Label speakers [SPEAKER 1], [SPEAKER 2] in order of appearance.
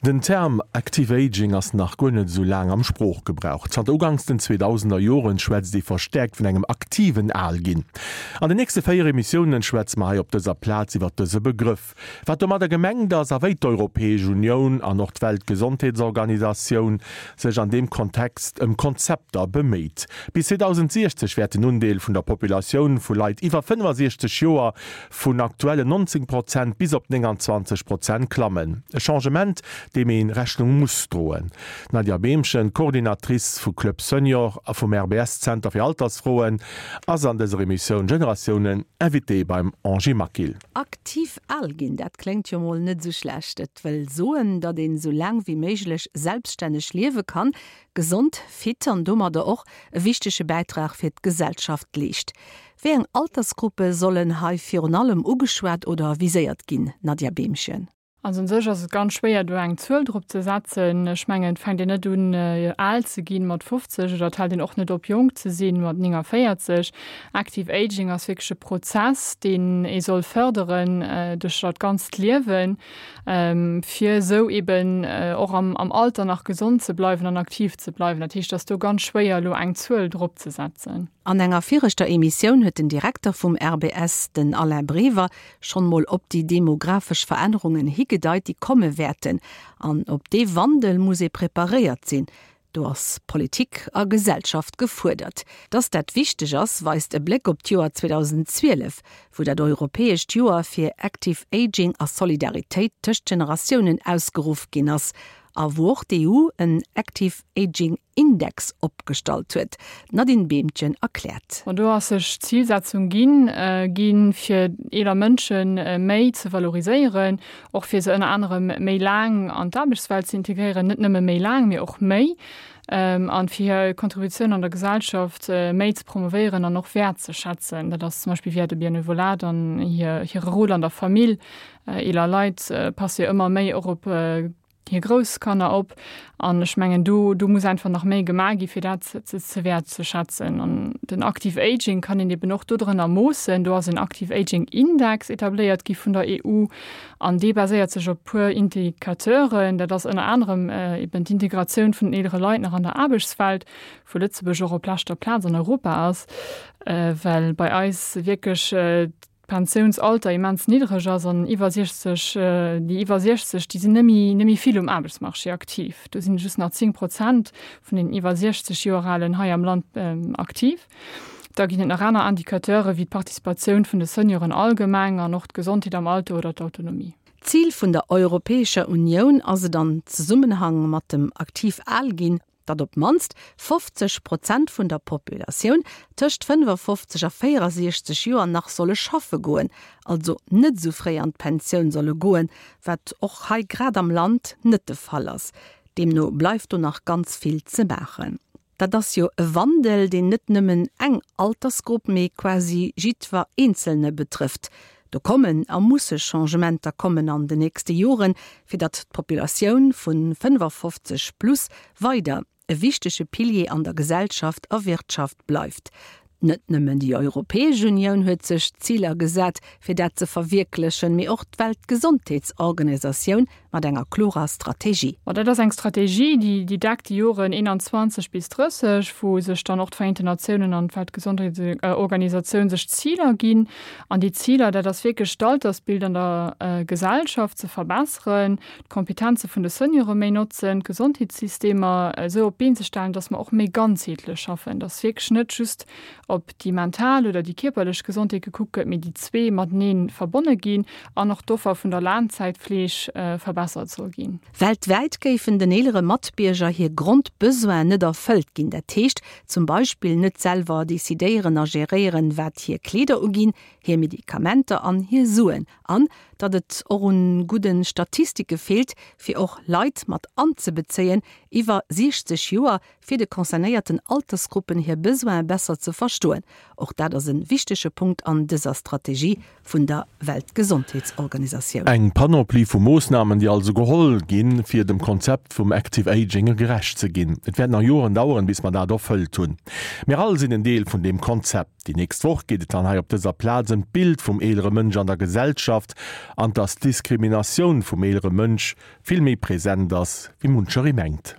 [SPEAKER 1] Den Term Active Aging ass nach guer net esou laang am Sproochgebrauch. Zanter uganks den 2000er Joren schwätzt ee verstäerkt vun engem aktiven Alginn. An den nächste 4 Emissiounen schwätze mer hei op dëser Plaz iwwer dëse Begrëff, wat domadder gemengt ass a wéi d'Europäesch Unioun an och d'Weltgesondheetsorganisatioun sech an deem Kontext ëm Konzepter beméit. Bis 2060 wäert den Undeel vun der Populatioun vu Leit iwwer 65 Joer vun aktuellen 19 Prozent bis op 29 Prozent klammen. E Changement, deem ee Rechnung muss droen. D'Nadia Behmchen, Coordinatrice vu Club Senior a vum RBS-Zenter fir Altersfroen, ass an dëser Emissioun Generatiounen Invitée beim Angie Maquil.
[SPEAKER 2] Aktiv al ginn, dat kléngt jo mol net esou schlecht. Et wëll soen, datt een esou laang wéi méiglech selbststänneg liewe kann, gesond, fit an domadder och e wichtege Bäitrag fir d'Gesellschaft leescht. Wéi eng Altersgruppe sollen hei virun allem ugeschwat oder viséiert ginn, Nadja Behmchen?
[SPEAKER 3] Also un sech ass et ganz schwéier do eng Zuel drop ze setzen. Ech mengen, et fänkt een net un al ze ginn mat 50 oder et hält een och net op jonk ze sinn mat 49. Active Aging ass wierklech e Prozess, deen ee soll fërderen duerch dat ganzt Liewen, fir esou eben och am Alter nach gesond ze bleiwen an aktiv ze bleiwen. Dat heescht, et ass do ganz schwéier elo eng Zuel drop ze setzen.
[SPEAKER 2] An enger viregter Emissioun huet den Direkter vum RBS, den Alain Brever, schonn mol op déi demografesch Verännerungen higedeit, déi komme wäerten. An op dee Wandel muss ee preparéiert sinn. Do ass Politik a Gesellschaft gefuerdert. Dass dat wichteg ass, weist e Bléck op d'Joer 2012, wou dat europäescht Joer fir Active Aging a Solidaritéit tëscht Generatiounen ausgeruff ginn ass a wou och d'EU en Active Aging Index opgestallt huet. D'Nadine Behmchen erkläert.
[SPEAKER 3] An do ass sech d'Zilsetzung ginn, ginn, fir eeler Mënsche méi ze valoriséieren, och fir se ënner anerem méi laang an d'Aarbechtswelt ze integréieren, net nëmme méi laang, mee och méi, an fir hir Kontributioun an der Gesellschaft méi ze promovéieren an och wäertzeschätzen. Dat ass zum Beispill via de Benevolat an hir hire Rôle an der Famill. Eeler Leit passe jo ëmmer méi och op hir grouss Kanner op an ech mengen do do muss einfach nach méi gemaach gi fir dat ze ze wäertzeschätzen. An den Active Aging kann een eben och dodrënner moossen. Do ass en Active Aging Index etabléiert gi vun der EU an dee baséiert sech op puer Indicateuren. Dat ass ënner anerem eben d'Integratioun vun den eelere Leit nach an der Aarbechtswelt, wou Lëtzebuerg och op leschter Plaz an Europa ass, well bei eis wierklech d'Pensiounsalter immens niddreg ass an iwwer 60, déi iwwer 60, déi sinn net méi, net méi vill um Aarbechtsmarché aktiv. Do sinn just nach 10 Prozent vun den iwwer 60 Joer Alen hei am Land aktiv. Da ginn et nach aner Indicateure wéi d'Participatioun vun de Senioren allgemeng an och d'Gesondheet am Alter oder d'Autonomie.
[SPEAKER 2] D'Zil vun der Europäescher Unioun ass et an Zesummenhang mat dem aktiv al ginn, datt op d'mannst 50 Prozent vun der Populatioun tëscht 55 a 64 Joer nach solle schaffe goen, also net esou fréi an d'Pensioun solle goen, wat och hei grad am Land net de Fall ass. Deemno bleift do nach ganz vill ze maachen. Dat ass jo e Wandel, deen net nëmmen eng Altersgrupp, mee quasi jiddwer Eenzelne betrëfft. Do kommen a musse Changementer kommen an de nächste Joren, fir datt d'Populatioun vu 55 plus weider e wichtege Pilier an der Gesellschaft a Wirtschaft bleift. Net nëmmen déi Europäesch Unioun huet sech Ziler gesat, fir dat ze verwierklechen, mee och d'Weltgesondheetsorganisatioun mat enger klorer Strategie.
[SPEAKER 3] Ma dat ass eng Strategie, déi déi deckt déi Joren 21 bis 30, wou sech dann och d'Vereenten Natiounen an d'Weltgesondheetsorganisatioun sech Ziler ginn. An déi Ziler, dat ass wierklech d'Altersbild an der Gesellschaft ze verbesseren, d'Kompetenze vun de Seniore méi notzen, d'Gesondheetssystemer esou op d'Been ze stellen, datt mer och méi ganzheetlech schaffen, datt wierklech net just op déi mental oder déi kierperlech Gesondheet gekuckt gëtt, mee déi zwee matenee verbonne ginn an och d'Offer vun der Laangzäitfleeg verbessert soll ginn.
[SPEAKER 2] Weltwäit géifen den eelere Matbierger hir Grondbesoinen net erfëllt ginn. Dat heescht zum Beispill net selwer decidéieren a geréieren, wat hir Kleeder uginn, hir Medikamenter an hir Suen. An datt et och un gudde Statistike feelt, fir och Leit mat anzebezéien iwwer 60 Joer, fir de concernéierten Altersgruppen hir Besoine besser ze verstoen. Och dat ass e wichtege Punkt an dëser Strategie vun der Weltgesondheetsorganisatioun.
[SPEAKER 1] Eng Panoplie vu Moossnamen, déi. also geholl ginn, fir dem Konzept vum Active Aging gerecht ze ginn. Et wäert nach Joren daueren, bis mer dat erfëllt hunn. Mir all sinn en Deel vun deem Konzept. Déi nächst Woch geet et dann hei op dëser Plaz ëm d'Bild vum eelere Mënsch an der Gesellschaft an dass d'Diskriminatioun vum eelere Mënsch vill méi present ass, wéi muncheree mengt.